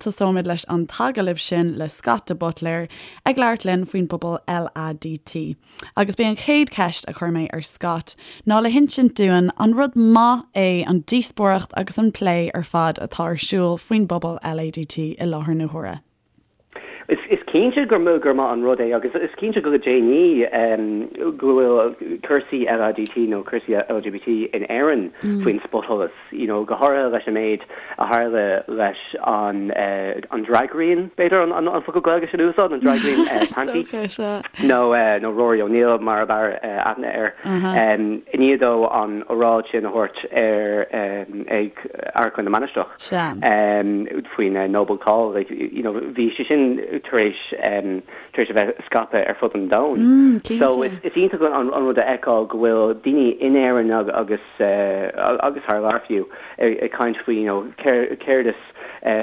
Tosóimid leis an t-agallamh sin le Scott de Buitléir ag labhairt linn faoin bpobal LADT. Agus b'é an chéad cheist a chuir mé ar Scott ná le hinsint dúinn an rud maith é an díospóireacht agus an plé ar fad atá ar siúl faoin bpobal LADT i láthair na huaire. Is cinnte gur maith an rud é agus is cinnte go déanaí go bhfuil cúrsaí LADT nó cúrsaí LGBT in Éirinn faoin spotsholas, you know, go háirithe leis an méid a tharla leis an an draigríon, b'fhéidir an focal Gaeilge sin a úsáid, an draigríon Panti nó nó Rory O'Neill mar ab fhearr aithne air, i ndiaidh dó an oráid sin a thabhairt ar ag Amharclann na Mainistreach. Sea. faoin Noble Call, like, you know, bhí sé sin tar éis, tar éis a bheith scaipthe ar fud an domhain. Mm, cinnte. So is, is iontach an, an rud a fheiceáil go bhfuil daoine in Éirinn agus, agus thar lear fiú, ag, ag caint faoi, you know, céard, céard is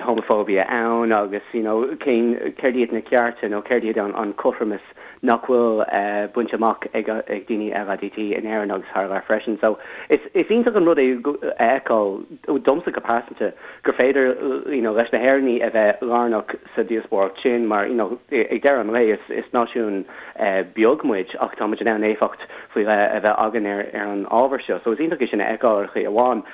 homophobia ann agus, you know, cén, céard iad na cearta nó céard iad an, an cothromas nach bhfuil bainte amach ag daoine LADT in Éirinn agus thar lear freisin. So is iontach an rud é a fheiceáil, domsa go pearsanta, gur féidir you know leis na hÉireannaigh a bheith lárnach sa díospóireacht sin mar you know ag deireadh an lae is is náisiún beag muid ach tá muid in ann éifeacht faoi leith a bheith againn ar ar an ábhar seo. So is iontach é sin a fheiceáil ar chaoi amháin.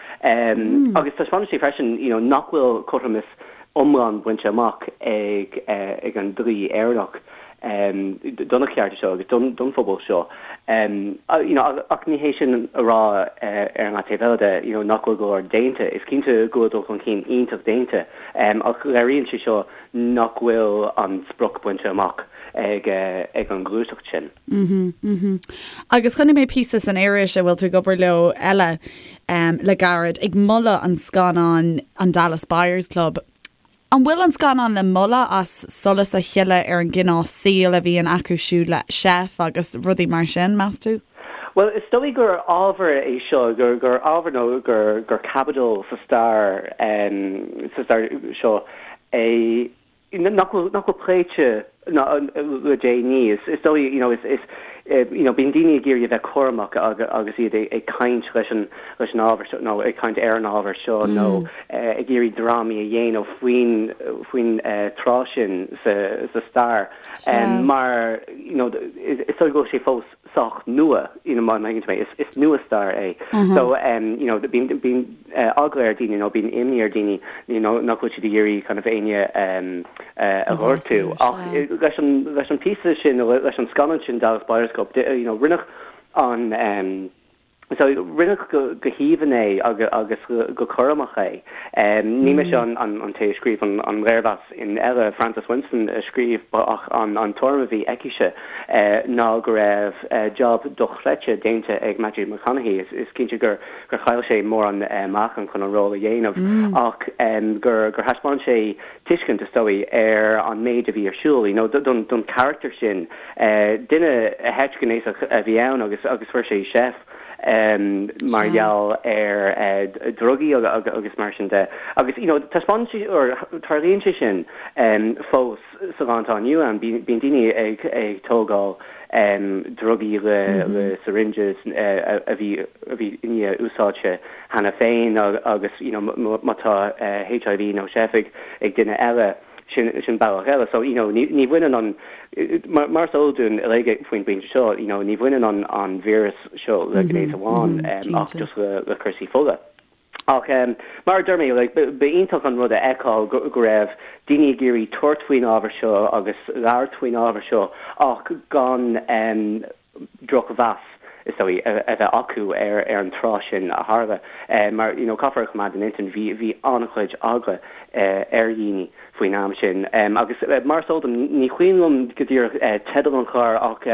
Agus taispeánann sé freisin you know nach bhfuil cothromas iomlán bainte amach ag ag an dlí Éireannach do na cearta seo agus don don phobal seo. You know ach ní hé sin a rá ar an leath taobh eile de you know nach bhfuil go leor déanta. Is cinnte go bhfuil dul chun cinn iontach déanta ach léiríonn sé seo nach bhfuil an sprioc bainte amach ag ag an ghluaiseacht sin. Agus chonaic mé píosa san iris a bhfuil tú ag obair leo, Elle, le gairid, ag moladh an scannáin an Dallas Buyers Club. An bhfuil an scannán le moladh as solas a shileadh ar an gcineál saoil a bhíonn acu siúd le seif agus rudaí mar sin, meas tú? Bhuel, is dóigh gur ábhar é seo, gur gur ábhar nó gur gur caibidil sa stair sa stair seo é nach bhfuil nach bhfuil pléite le déanaí. Is dóigh, you know, is, is, you know, bíonn daoine ag iarraidh a bheith cúramach agus iad ag caint leis an, leis an ábhar seo nó ag caint ar an ábhar seo nó ag iarraidh drámaí a dhéanamh faoin, faoin tráth sin sa, sa stair mar, you know, is dóigh go bhfuil sé fós sách nua, you know, má thuigeann tú mé, is, is nua-stair é. So, you know, bíonn, bíonn eagla ar daoine nó bíonn imní ar daoine, you know, nach bhfuil siad ag iarraidh kind of éinne a ghortú. Ach leis an, leis an píosa sin nó leis an scannán sin Dallas Buyers Club, you know, rinneadh an, So, rinneadh go haoibhinn é agus go cúramach é. Ní mise an té a scríobh an léirmheas in Elle, Frances Winston a scríobh ach an tuairim a bhí aicise ná go raibh jab dochreidte déanta ag Matthew McConaughey. Is cinnte gur chaill sé mórán meáchan chun an ról a dhéanamh ach gur thaispeáin sé tuiscint, is dóigh, ar an méid a bhí ar siúl, you know, don charachtar sin. Duine heitrighnéasach a bhí ann agus agus fuair sé seif mar gheall ar drugaí agus mar sin de. Agus, you know, taispeánann sé, or tarlaíonn sé sin fós sa lá atá inniu ann. Bíonn daoine ag ag tógáil drugaí le le syringes a bhí a bhí i ndiaidh úsáidte cheana féin agus, you know, má tá HIV nó seif ag duine eile, sin, sin bealach eile. So, you know, ní, ní bhaineann an, mar, mar is eol dúinn uilig faoin bpointe seo, you know, ní bhaineann an, an víreas seo le gnéas amháin ach just le, le cúrsaí fola. Ach mar a deir mé, like, ba iontach an rud a fheiceáil go, go raibh daoine ag iarraidh tabhairt faoin ábhar seo agus labhairt faoin ábhar seo ach gan drochmheas, is dóigh, a bheith acu ar an tráth sin a tharla. Mar, you know, caithfear a choimeád in intinn, bhí, bhí an-chuid eagla ar dhaoine faoin am sin. Agus mar is eol dom, ní cuimhin liom go díreach teideal an chláir ach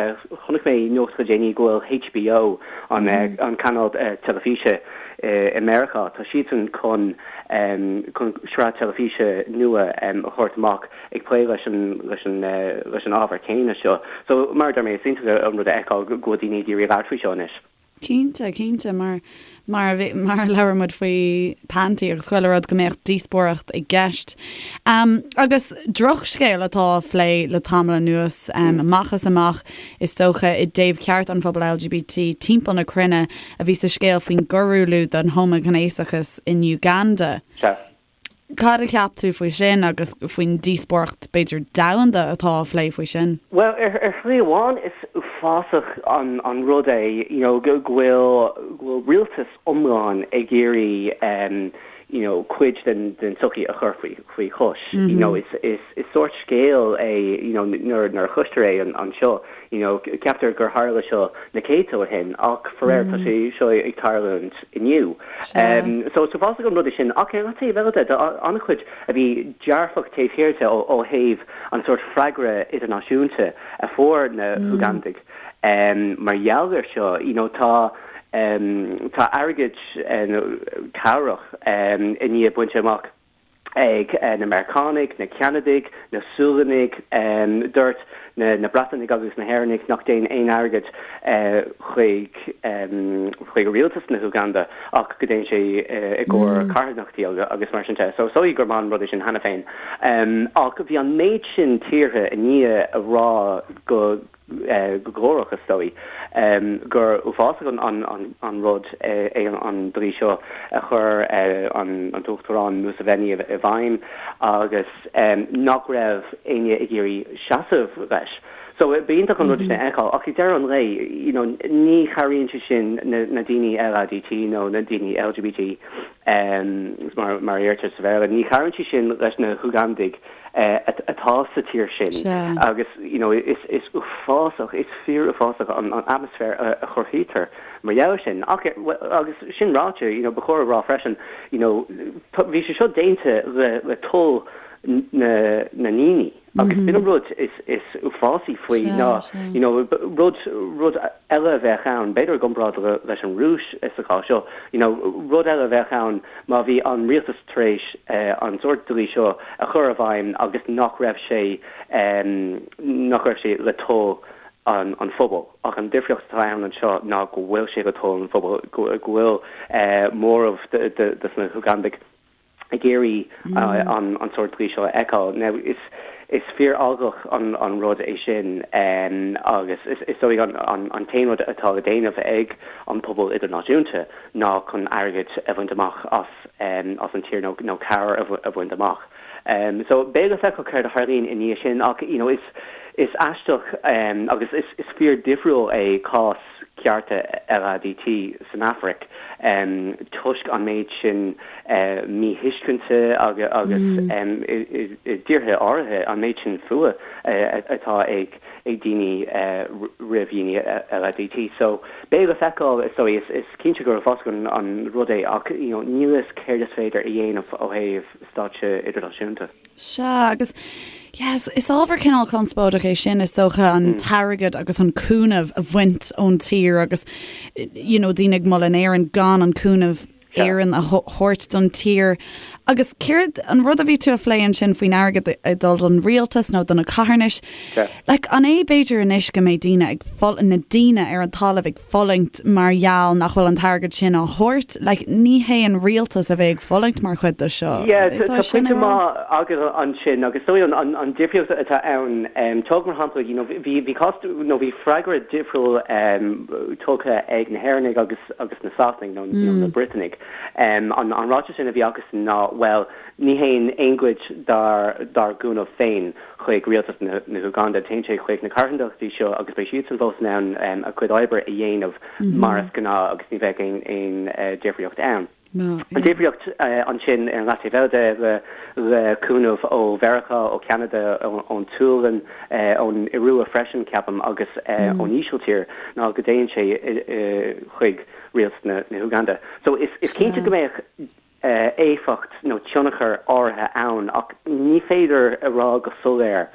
chonaic mé nuacht le déanaí go bhfuil HBO, an, an cainéal teilifíse i Meiriceá, tá siadsan chun, chun sraith teilifíse nua a thabhairt amach ag plé leis an, leis an, leis an ábhar céanna seo. So, mar a deir mé, is iontach an rud a fheiceáil go bhfuil daoine ag iarraidh labhairt faoi seo anois. Cinnte, cinnte, mar, mar a bhí, mar a labhair muid faoi Panti agus chuile rud go mbeadh díospóireacht i gceist. Um, agus drochscéal atá á phlé le tamall anuas, um, amach is amach, is dócha, i dtaobh cearta an phobail LGBT timpeall na cruinne a bhí sa scéal faoin gcoiriúlú den homaighnéasachas in Uganda. Sea. Cad a cheap tú faoi sin agus faoin díospóireacht, b'fhéidir, domhanda atá á phlé faoi sin? Bhuel, ar shlí amháin is uafásach an rud é you know go bhfuil go bhfuil rialtas iomlán ag iarraidh you know cuid den den tsochaí a chur faoi faoi chois. You know is is is sórt scéal é you know nuair nuair a chloistear é anseo you know ceaptar gur tharla seo na céadta ó shin ach faraor tá sé seo ag tarlúint inniu. So is uafásach an rud é sin ach ar an taobh eile de tá an-chuid a bhí dearfach taobh thiar de ó thaobh an sórt freagra idirnáisiúnta a fuair na hUgandaigh mar gheall air seo. You know tá tá airgead nó cabhrach i ndiaidh bainte amach ag na Meiriceánaigh, na Ceanadaigh, na Sualannaigh. Dúirt na Breatanaigh agus na hÉireannaigh nach dtéann aon airgead chuig chuig rialtas na hÚganda ach go dtéann sé i gcomhair carthanachtaí agus mar sin de. So is dóigh gur maith an rud é sin cheana féin. Ach bhí an méid sin tíortha i ndiaidh a rá go go glórach, is dóigh, gur uafásach an rud é an dlí seo a chuir an tUachtarán Museveni i bhfeidhm agus nach raibh éinne ag iarraidh seasamh leis. So b'iontach an rud é sin a fheiceáil ach ag deireadh an lae, you know, ní chabhraíonn sé sin na daoine LADT nó na daoine LGBT mar a deirtear sa Bhéarla, ní chabhraíonn sé sin leis na hUgandaigh atá sa tír sin agus you know is is uafásach, is fíor-uafásach an atmaisféar a chruthaítear mar gheall air sin. Ach agus sin ráite, you know ba chóir a rá freisin, you know bhí sé seo déanta le le toil na na ndaoine agus b'in an rud is is uafásaí faoi ná you know rud rud eile a bheadh ann, b'fhéidir i gcomparáid leis an Rúis sa chás seo, you know rud eile a bheadh ann má bhí an rialtas tar éis an sórt dlí seo a chur i bhfeidhm agus nach raibh sé nach raibh sé le toil an phobail. Ach an difríocht atá ann anseo ná go bhfuil sé le toil an phobail, go bhfuil móramh de na hUgandaigh ag iarraidh an sórt dlí seo a fheiceáil. Now is is fíor-eaglach an rud é sin agus is dóigh an t-aon rud atá le déanamh ag an pobal idirnáisiúnta ná chun airgead a bhaint amach as as an tír nó nó cabhair a bhaint amach. So beidh le feiceáil céard a tharlaíonn i ndiaidh sin ach you know is is aisteach agus is is fíor difriúil é cás cearta LADT san Afraic toisc an méid sin míthuiscinte agus agus i dtíortha áirithe an méid sin fuath atá ag ag daoine roimh dhaoine LADT. So beidh le feiceáil is dóigh, is cinnte gur uafásach an rud é ach you know níl a fhios céard is féidir a dhéanamh ó thaobh stáitse idirnáisiúnta. Sea, agus yes, is ábhar cineál conspóideach é sin is dócha an t-airgead agus an cúnamh a bhaint ón tír agus you know daoine ag moladh in Éirinn gan an cúnamh Éireann a thabhairt don tír. Agus céard an rud a bhí tú a phlé ansin faoin airgead ag dul don rialtas nó do na carthanais? Like, an é b'fhéidir anois go mbeidh daoine ag na daoine ar an talamh ag fulaingt mar gheall nach bhfuil an t-airgead sin á thabhairt? Like, ní hé an rialtas a bheidh ag fulaingt mar chuid de seo. Yeah, tá pointe maith agat ansin agus is dóigh an difríocht atá ann, tóg mar shampla, you know, bhí bhí cás nó bhí freagra difriúil tugtha ag na hÉireannaigh agus agus na Sasanaigh nó na Briotanaigh. An ráiteas sin a bhí acusan ná, bhuel, ní théann aon chuid dár gcúnamh féin chuig rialtas na hÚgánda, téann sé chuig na carthanachtaí seo agus beidh siadsan fós in ann a gcuid oibre a dhéanamh mar is gnáth agus ní bheidh aon difríocht ann. An difríocht ansin ar an leataobh eile de, le cúnamh ó Mheiriceá, ó Cheanada, ón tSualainn, ón Iorua freisin, ceapaim, agus ón Ísiltír, ná go dtéann sé chuig rialtas na hÚganda. So is cinnte go mbeadh éifeacht nó tionchar áirithe ann ach ní féidir a rá go soiléir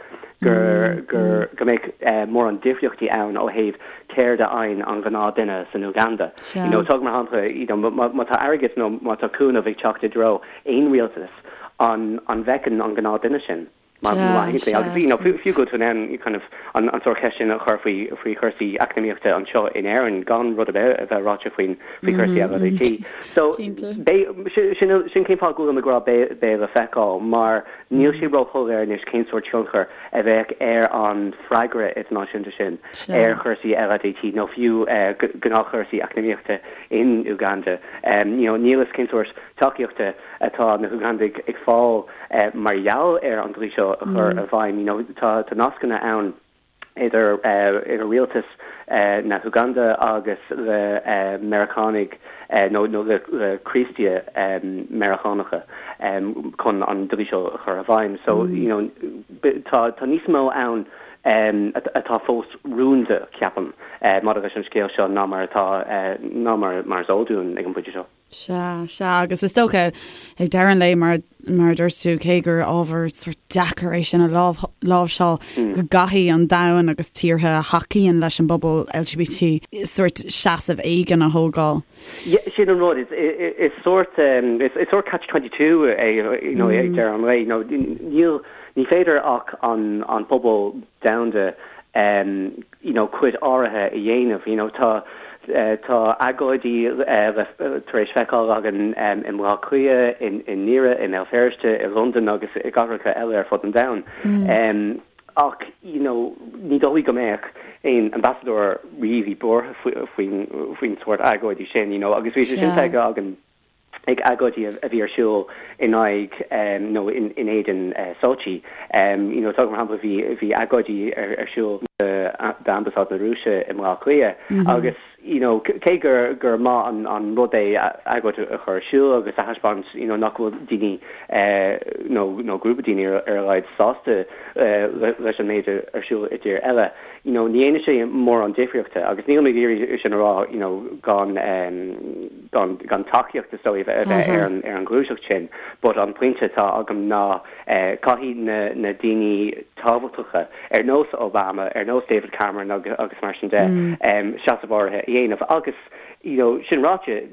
gur gur go mbeadh mórán difríochtaí ann ó thaobh céard a fhaigheann an gnáth-duine san Uganda. You know, tóg mar shampla, you know, má tá airgead nó má tá cúnamh ag teacht i dtreo aon rialtas, an an bhfeiceann an gnáth-duine sin? Má thuigeann tú mé. Agus you know fiú go bhfuil tú in ann kind of an sórt ceist sin a chur faoi faoi chúrsaí eacnamaíochta anseo in Éirinn gan rud ar bith a bheith ráite faoin faoi chúrsaí LADT. So beidh sin sin cén fáth go bhfuilim ag rá beidh beidh le feiceáil mar níl sé róshoiléir anois cén sórt tionchar a bheadh ar an freagra idirnáisiúnta sin ar chúrsaí LADT nó fiú gnáthchúrsaí eacnamaíochta in Uganda. You know níl fhios cén sórt tacaíochta atá na hUgandaigh ag fáil mar gheall ar an dlí seo a chur i bhfeidhm. You know tá tá nascanna ann idir idir rialtas na hUganda agus le Meiriceánaigh nó nó le le Críostaithe Meiriceánacha chun an dlí seo a chur i bhfeidhm. So you know tá tá níos mó ann atá fós rúnda, ceapaim, maidir leis an scéal seo ná mar atá ná mar mar is eol dúinn ag an bpointe seo. Sea, sea, agus is dócha, ag deireadh an lae, mar, mar a dúirt tú, cé gur ábhar sórt deacair é sin a láimhseáil, go gcaithfidh an domhan agus tíortha a thacaíonn leis an bpobal LGBT sórt seasamh éigin a thógáil. Yeah, sin an rud, is, is sórt, is, is sórt catch 22 é, you know, ag deireadh an lae, you know, níl, ní féidir ach an, an pobal domhanda, you know cuid áirithe a dhéanamh you know tá tá agóidí le tar éis feiceáil againn i mBaile Átha Cliath, i i nDoire, i mBéal Feirste, i Londain agus i gcathracha eile ar fud an domhain. Ach you know ní dóigh go mbeadh aon ambasadóir really buartha faoin faoin sórt agóidí sin you know agus bhí sé sin feicthe againn ag agóidí a bhí ar siúl in aghaidh nó in éadan Sochi. You know, tóg mar shampla, bhí bhí agóidí ar siúl d'Ambasáid na Rúise i mBaile Átha Cliath agus you know, cé gur gur maith an an rud é agóid a chur ar siúl agus a thaispeáint you know, nach bhfuil daoine nó nó grúpa daoine ar ar a laghad sásta leis an méid ar siúl i dtír eile, you know, ní dhéanann sé mórán difríochta agus nílim ag iarraidh sin a rá you know, gan gan gan tacaíocht is dóigh a bheith ar an ar an ghluaiseacht sin but an pointe atá agam ná caithfidh na na daoine tábhachtacha ar nós Obama, ar nós David Cameron agus agus mar sin de seasamh áirithe a dhéanamh agus you know sin ráite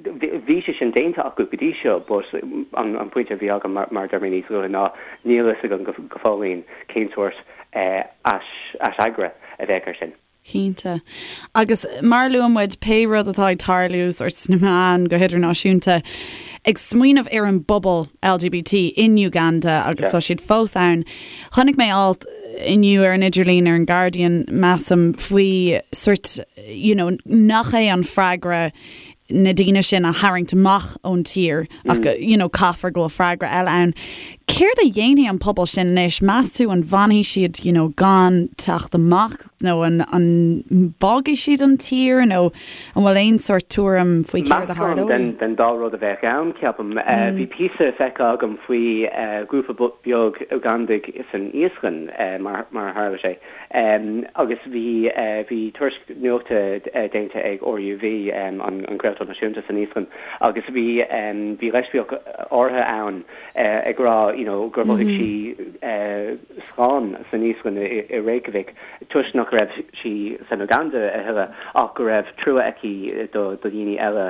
bhí sé sin déanta acu go dtí seo but an an pointe a bhí agam mar mar a dúirt mé níos luaithe ná níl fhios agam go go fóillín cén sórt ais aisfhreagra a bheadh air sin. Cinnte. Agus mar a luaigh muid, pé rud atá ag tarlú sórt sna meáin go hidirnáisiúnta, ag smaoineamh ar an bpobal LGBT in Uganda agus tá siad fós ann. Chonaic mé alt inniu ar an idirlíon ar an Guardian, measaim, faoi sórt, you know, nach é an freagra na daoine sin a tharraingt amach ón tír ach you know caithfear go bhfuil freagra eile ann. Céard a dhéanfaidh an pobal sin anois? Meas tú an bhfanfaidh siad you know gan teacht amach nó an an bhfágfaidh siad an tír nó an bhfuil aon sórt tuairim faoi céard a tharlóidh? Den den dá rud a bheadh ann, ceapaim. Bhí píosa feicthe agam faoi ghrúpa beag Ugandaigh san Íoslainn mar mar a tharla sé. Agus bhí bhí tuairisc nuachta déanta ag RÚV, an craoltóir náisiúnta san Íoslainn, agus bhí bhí leispiach áirithe ann ag rá you know gur mhothaigh sí slán san Íoslainn i Reykjavik toisc nach raibh sí san Uganda a thuilleadh ach go raibh trua aici do dhaoine eile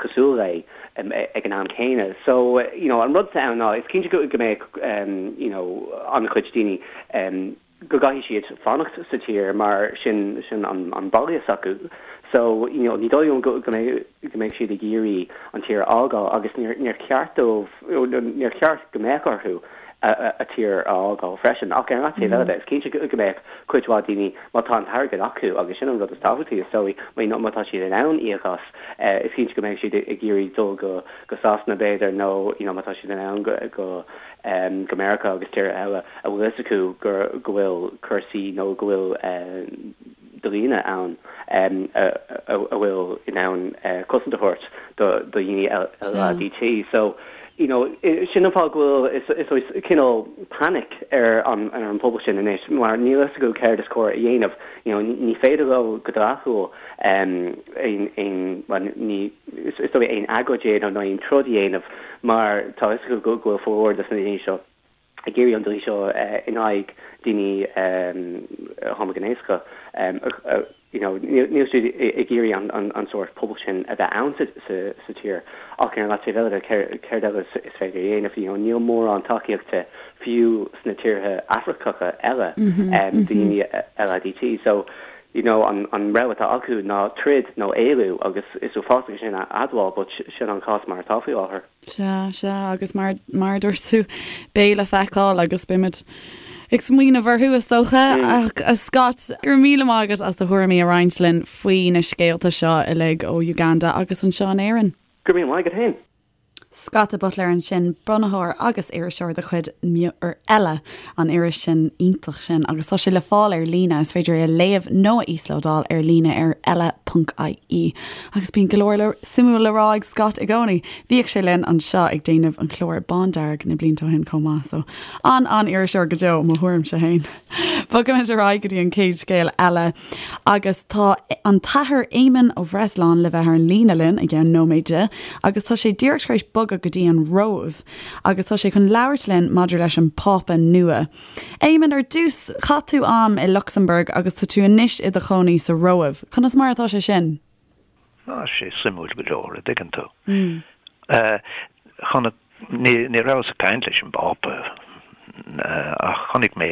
cosúil léi ag an am céanna. So you know an rud atá ann ná is cinnte go mbeadh you know an-chuid daoine go gcaithfidh siad fanacht sa tír mar sin sin an an baile s'acu so you know ní dóigh liom go go mbeidh go mbeidh siad ag iarraidh an tír a fhágáil agus níor níor cheart dóibh níor cheart go mbeadh orthu a a a tír a fhágáil freisin ach ar an taobh eile de is cinnte go go mbeadh cuid mhaith daoine má tá an t-airgead acu agus sin an rud is tábhachtaí is dóigh má má tá siad in ann íoc as is cinnte go mbeidh siad ag iarraidh dul go go Sasana b'fhéidir nó you know má tá siad in ann go go go Meiriceá agus tíortha eile a bhfuil fhios acu gur go bhfuil cúrsaí nó go bhfuil dlíthe ann a bhfuil in ann cosaint a thabhairt do dhaoine LADT. So, you know, sin an fáth go bhfuil is is cineál panic ar an ar an pobal sin anois mar níl fhios acu céard is cóir a dhéanamh. You know, ní féidir leo go dleathúil aon aon bhuel ní is dóigh aon agóid a dhéanamh nó aon troid a dhéanamh mar tá fhios acu go bhfuil formhór de na daoine seo ag iarraidh an dlí seo in aghaidh daoine homaighnéasacha. you know, níl siad ag iarraidh an sórt pobal sin a bheith ann sa tír. Ach ar an leataobh eile de, céard eile is féidir a dhéanamh? You know, níl mórán tacaíochta fiú sna tíortha Afracacha eile daoine LADT. So, you know, an rogha atá acu ná troid nó éalú agus is uafásach é sin a admháil but sin an cás mar atá faoi láthair. Sea, sea, agus mar, mar a dúirt tú, beidh le feiceáil agus beimid ag smaoineamh orthu is dócha. Ach a Scott, go raibh míle maith agat as do thuairimí a roinnt linn faoi na scéalta seo uilig ó Uganda agus anseo in Éirinn. Go raibh míle maith agat féin. Scott de Buitléir ansin, bunaitheoir agus iriseoir de chuid ar Eile, an iris sin iontach sin, agus tá sé le fáil ar líne, is féidir é a léamh nó a íoslódáil ar líne ar eile.ie. Agus bíonn go leor le suimiúil le rá ag Scott i gcónaí. Bhíodh sé linn anseo ag déanamh an clár Bándearg na blianta ó shin chomh maith, so an-an-iriseoir go deo, mo thuairimse féin. Bogaimid ar aghaidh go dtí an chéad scéal eile agus tá an tAthair Éamonn Ó Breasláin le bheith ar an líne linn i gceann nóiméid agus tá sé díreach tar éis bogadh go dtí an Róimh agus tá sé chun labhairt linn maidir leis an Phápa nua. Éamonn, ar dtús, chaith tú am i Lucsamburg agus tá tú anois i do chónaí sa Róimh. Conas mar atá sé sin? Tá sé suimiúil go leor, a dtuigeann tú. Chonaic, ní rabhas ag caint leis an bPápa ach chonaic mé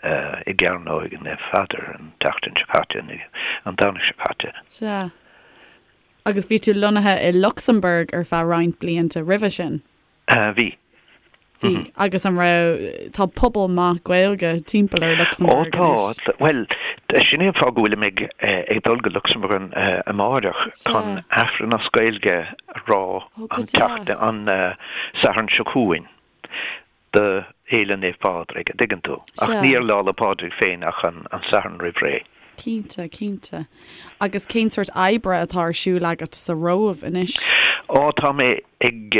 é i gCearnóg Naomh Pheadair an tseachtain seo caite, an Domhnach seo caite. Sea. Agus bhí tú lonnaithe i Lucsamburg ar feadh roinnt blianta roimhe sin? Bhí. Bhí. Agus an raibh, tá pobal maith Gaeilge timpeall ar Lucsamburg anois. Ó tá. Bhuel, sin é an fáth go bhfuilim ag ag dul go Lucsamburg amáireach chun Aifreann as Gaeilge a rá an tseachtain, an Satharn seo chugainn. do Fhéile Naomh Pádraig, a dtuigeann tú. Ach ní ar Lá 'le Pádraig féin ach an Satharn roimh ré. Cinnte, cinnte. Agus cén sórt oibre atá ar siúl agat sa Róimh anois? Ó, tá mé ag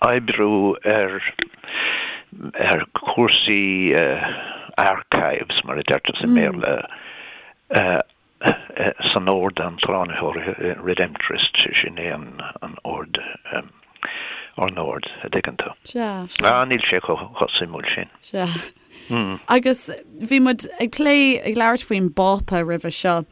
oibriú ar ar chúrsaí archives, mar a deirtear sa mBéarla, san Ord an tSlánaitheora, Redemptorist, sin é an ord, ár n-ord, a dtuigeann tú. Sea, sea. Ah, níl sé chomh suimiúil sin. Sea. Agus bhí muid ag plé, ag labhairt faoin bPápa roimhe seo.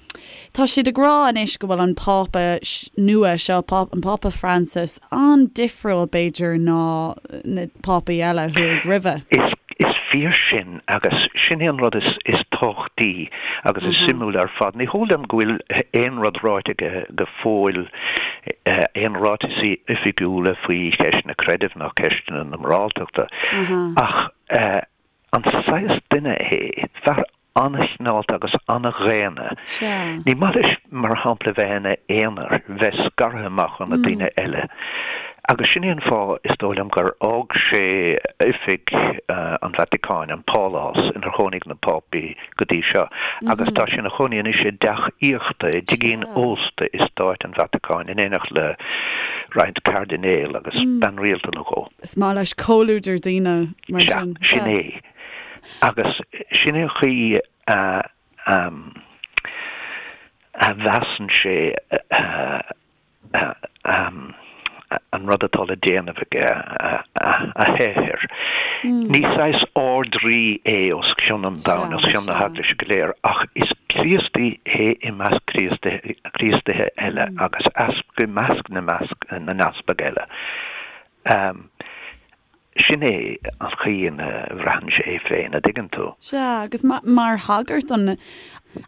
Tá siad ag rá anois go bhfuil an Pápa nua seo, an Pápa Francis, an-difriúil b'fhéidir ná na Pápaí eile a chuaigh roimhe. Is, is fíor sin agus sin é an rud is, is tábhachtaí agus is suimiúla ar fad. Ní heol dom go bhfuil aon rud ráite aige go fóill, aon ráiteasaí oifigiúla faoi cheisteanna creidimh ná ceisteanna na moráltachta ach an saghas duine é, fear an-chineálta agus an-dhaonna. Ní maith leis, mar shampla, bheith ina aonar, bheith scartha amach ó na daoine eile. Agus sin é an fáth, is dóigh liom, gur fhág sé oifig an Vatacáin, an pálás inar chónaigh na Pápaí go dtí seo, agus tá sé ina chónaí anois i dteach aíochta, i dtigín ósta i Stáit an Vatacáin, in éineacht le roinnt cairdinéal agus bean rialta nó dhó. Is maith leis comhluadar daoine mar sin. Sea, sin é. Agus sin é an chaoi a a mheasann sé an rud atá le déanamh aige, a shaothar. Ní saghas Ard-Rí é os cionn an domhain, os cionn na hEaglaise go léir, ach is Críostaí é i measc Críostaithe eile agus easpag i measc na n-easpag eile. Sin é an chaoi ina bhraitheann sé é féin, a dtuigeann tú. Sea, agus mar shagart, an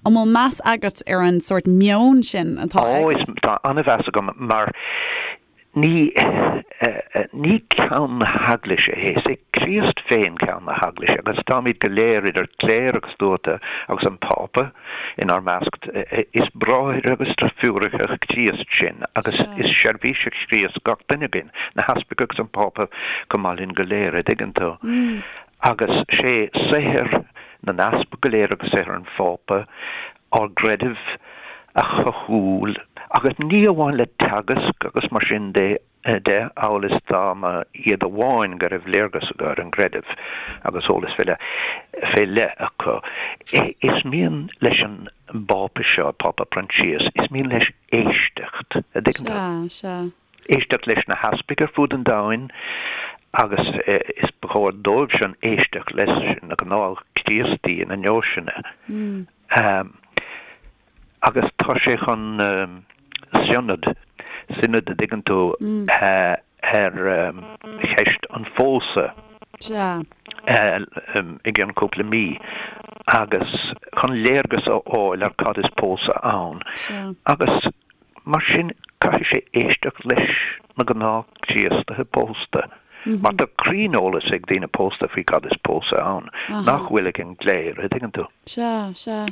bhfuil meas agat ar an sórt meoin sin atá aige? Ó, tá an-mheas agam, mar ní, ní ceann na hEaglaise é, is é Críost féin ceann na hEaglaise, agus táimid go léir, idir chléir agus tuata, agus an Pápa, inár measc. Is bráithre agus deirfiúracha Chríost sinn, agus is seirbhísigh Chríost gach duine againn, na heaspaig agus an Pápa chomh maith linn go léir, a dtuigeann tú. Agus sé saothar na n-easpag go léir agus saothar an Phápa ár gcreideamh a chothú, agus ní amháin le teagasc agus mar sin de, de, amhail is dá mba iad amháin go raibh léargas acu ar an gcreideamh agus eolas fé leith fé leith acu. Is mian leis an bPápa seo, Pápa Proinsias, is mian leis éisteacht, a dtuigeann tú? Sea, sea. Éisteacht leis na heaspaig ar fud an domhain agus is ba chóir dóibhsean éisteacht leis na gnáth-Chríostaí ina ndeoiseanna. Agus tá sé chun sionad, sionad a dtuigeann tú, ar cheist an phósadh i gcionn cúpla mí agus chun léargas a fháil ar cad is pósadh ann. Agus Mar sin, caithfidh sé éisteacht leis na gnáth-Chríostaithe pósta, mar tá cruinneolas ag daoine pósta faoi cad is pósadh ann, nach bhfuil ag an gcléir, a' dtuigeann tú? Sea, sea.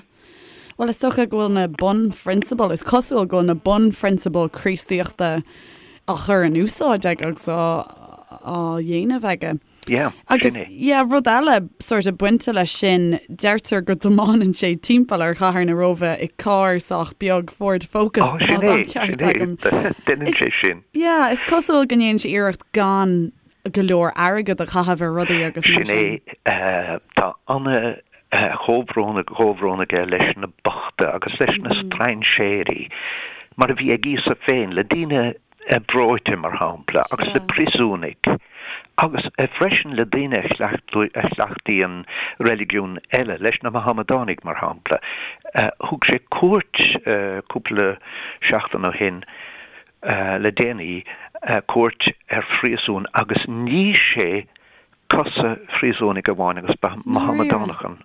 Bhuel, is dócha go bhfuil na bunphrionsabail, is cosúil go bhfuil na bunphrionsabail Críostaíochta á chur in úsáid aige agus á dhéanamh aige. Yeah, Agus, sin é. yeah, rud eile sort of bainte leis sin, deirtear go dtiomáineann sé timpeall ar chathair na Róimhe i carr sách beag Ford Focus, Oh, sin má tá é, an ceart sin é. agam. Déanann Is, sé sin. yeah, is cosúil go ndéanann sé iarracht gan go leor airgead a chaitheamh ar rudaí agus mar Sin sin. é. Tá ana chomhbhrón, chomhbhrón aige leis na bochta agus leis na strainséirí, mar a bhí ag Íosa féin, le daoine breoite, mar shampla, agus le príosúnaigh, agus freisin le daoine a chleachtaíonn reiligiún eile, leis na Mahamadánaigh, mar shampla. Thug sé cuairt cúpla seachtain ó shin, le déanaí, cuairt ar phríosún agus nigh sé cosa phríosúnaigh amháin agus ba Mahamadánach an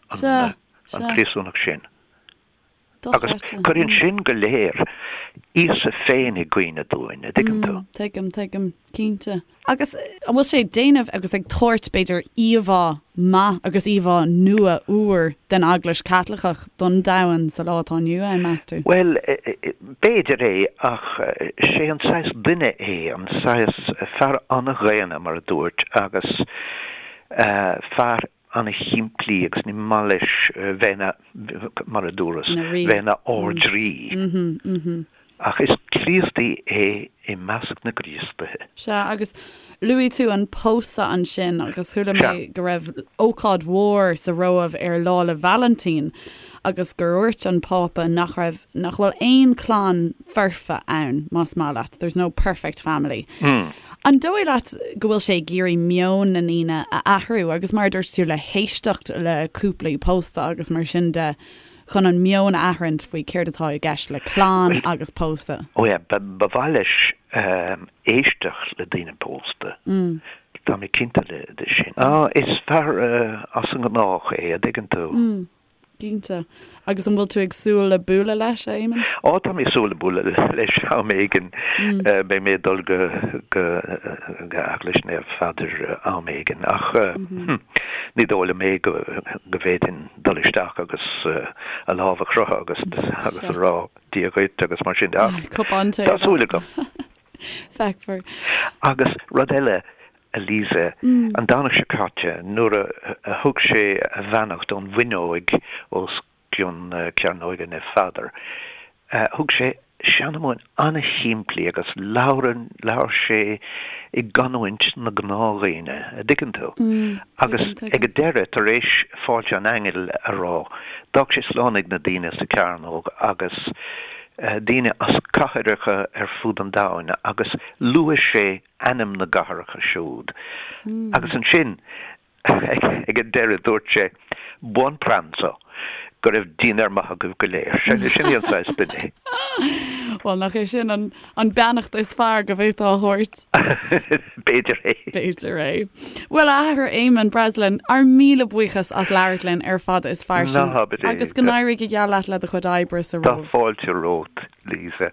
príosúnach sin. Agus cuireann sin go léir Íosa féin i gcuimhne dúinn, a' dtuigeann tú? Tuigim, tuigim, cinnte. Agus an bhfuil sé ag déanamh agus ag tabhairt, b'fhéidir, íomhá maith agus íomhá nua úr den Eaglais Chaitliceach don domhan sa lá atá inniu ann, meas tú? Bhuel, b'fhéidir é, ach sé an saghas duine é, an saghas fear an-dhaonna, mar a dúirt, agus fear ana-shimplí agus ní maith leis bheith ina, mar a dúras, bheith ina ardrí. Ach is Críostaí é i measc na gCríostaithe. Sea, agus luaigh tú an pósadh ansin agus chuala mé go raibh ócáid mhór sa Róimh ar Lá 'le Vailintín agus gur dhúirt an Pápa nach raibh, nach bhfuil aon chlann foirfe ann, más maith leat, there's no perfect family. An dóigh leat go bhfuil sé ag iarraidh meon na ndaoine a athrú agus mar a dúirt tú le héisteacht le cúplaí pósta agus mar sin de chun an meon a athraint faoi céard atá i gceist le clann agus pósadh? Ó yeah, ba mhaith leis éisteacht le daoine pósta. Tá mé cinnte de sin. Is fear as an ngnách é, a dtuigeann tú. Cinnte. Agus an bhfuil tú ag súil le bualadh leis, a Éamonn? Ó, tá mé ag súil le bualadh leis am éigin. Beidh mé ag dul go go Eaglais Naomh Pheadair am éigin ach ní dóigh liom é go go bhféadfainn dul isteach agus a lámh a chroitheadh agus agus a rá Dia dhuit agus mar sin de ach Cupán tae. tá súil agam. Feicfear. Agus rud eile, a Lisa, an Domhnach seo caite, nuair a thug sé a bheannacht ón bhfuinneoig os cionn Cearnóige Naomh Pheadar, thug sé seanmóin an-shimplí agus labhair, labhair sé i gcanúint na gnáthdhaoine, a dtuigeann tú? Agus ag an deireadh, tar éis Fáilte an Aingil a rá, d'fhág sé slán ag na daoine sa chearnóg agus daoine as cathracha ar fud an domhain agus luaigh sé ainm na gcathracha siúd. Agus ansin, ag an deireadh, dúirt sé, Buon pranzo! Go raibh dinnéar maith agaibh go léir. Sin é an saghas duine é. Bhuel, nach é sin an beannacht is fearr go bhféadfá a thabhairt? B'fhéidir é. B'fhéidir é. Bhuel, a Athair Éamonn Breslin, ár míle buíochas as labhairt linn ar Fada is Fairsing. Ná habair é. Agus go n-éirí go geal leat le do chuid oibre sa Tá Róimh. fáilte romhat, Lisa.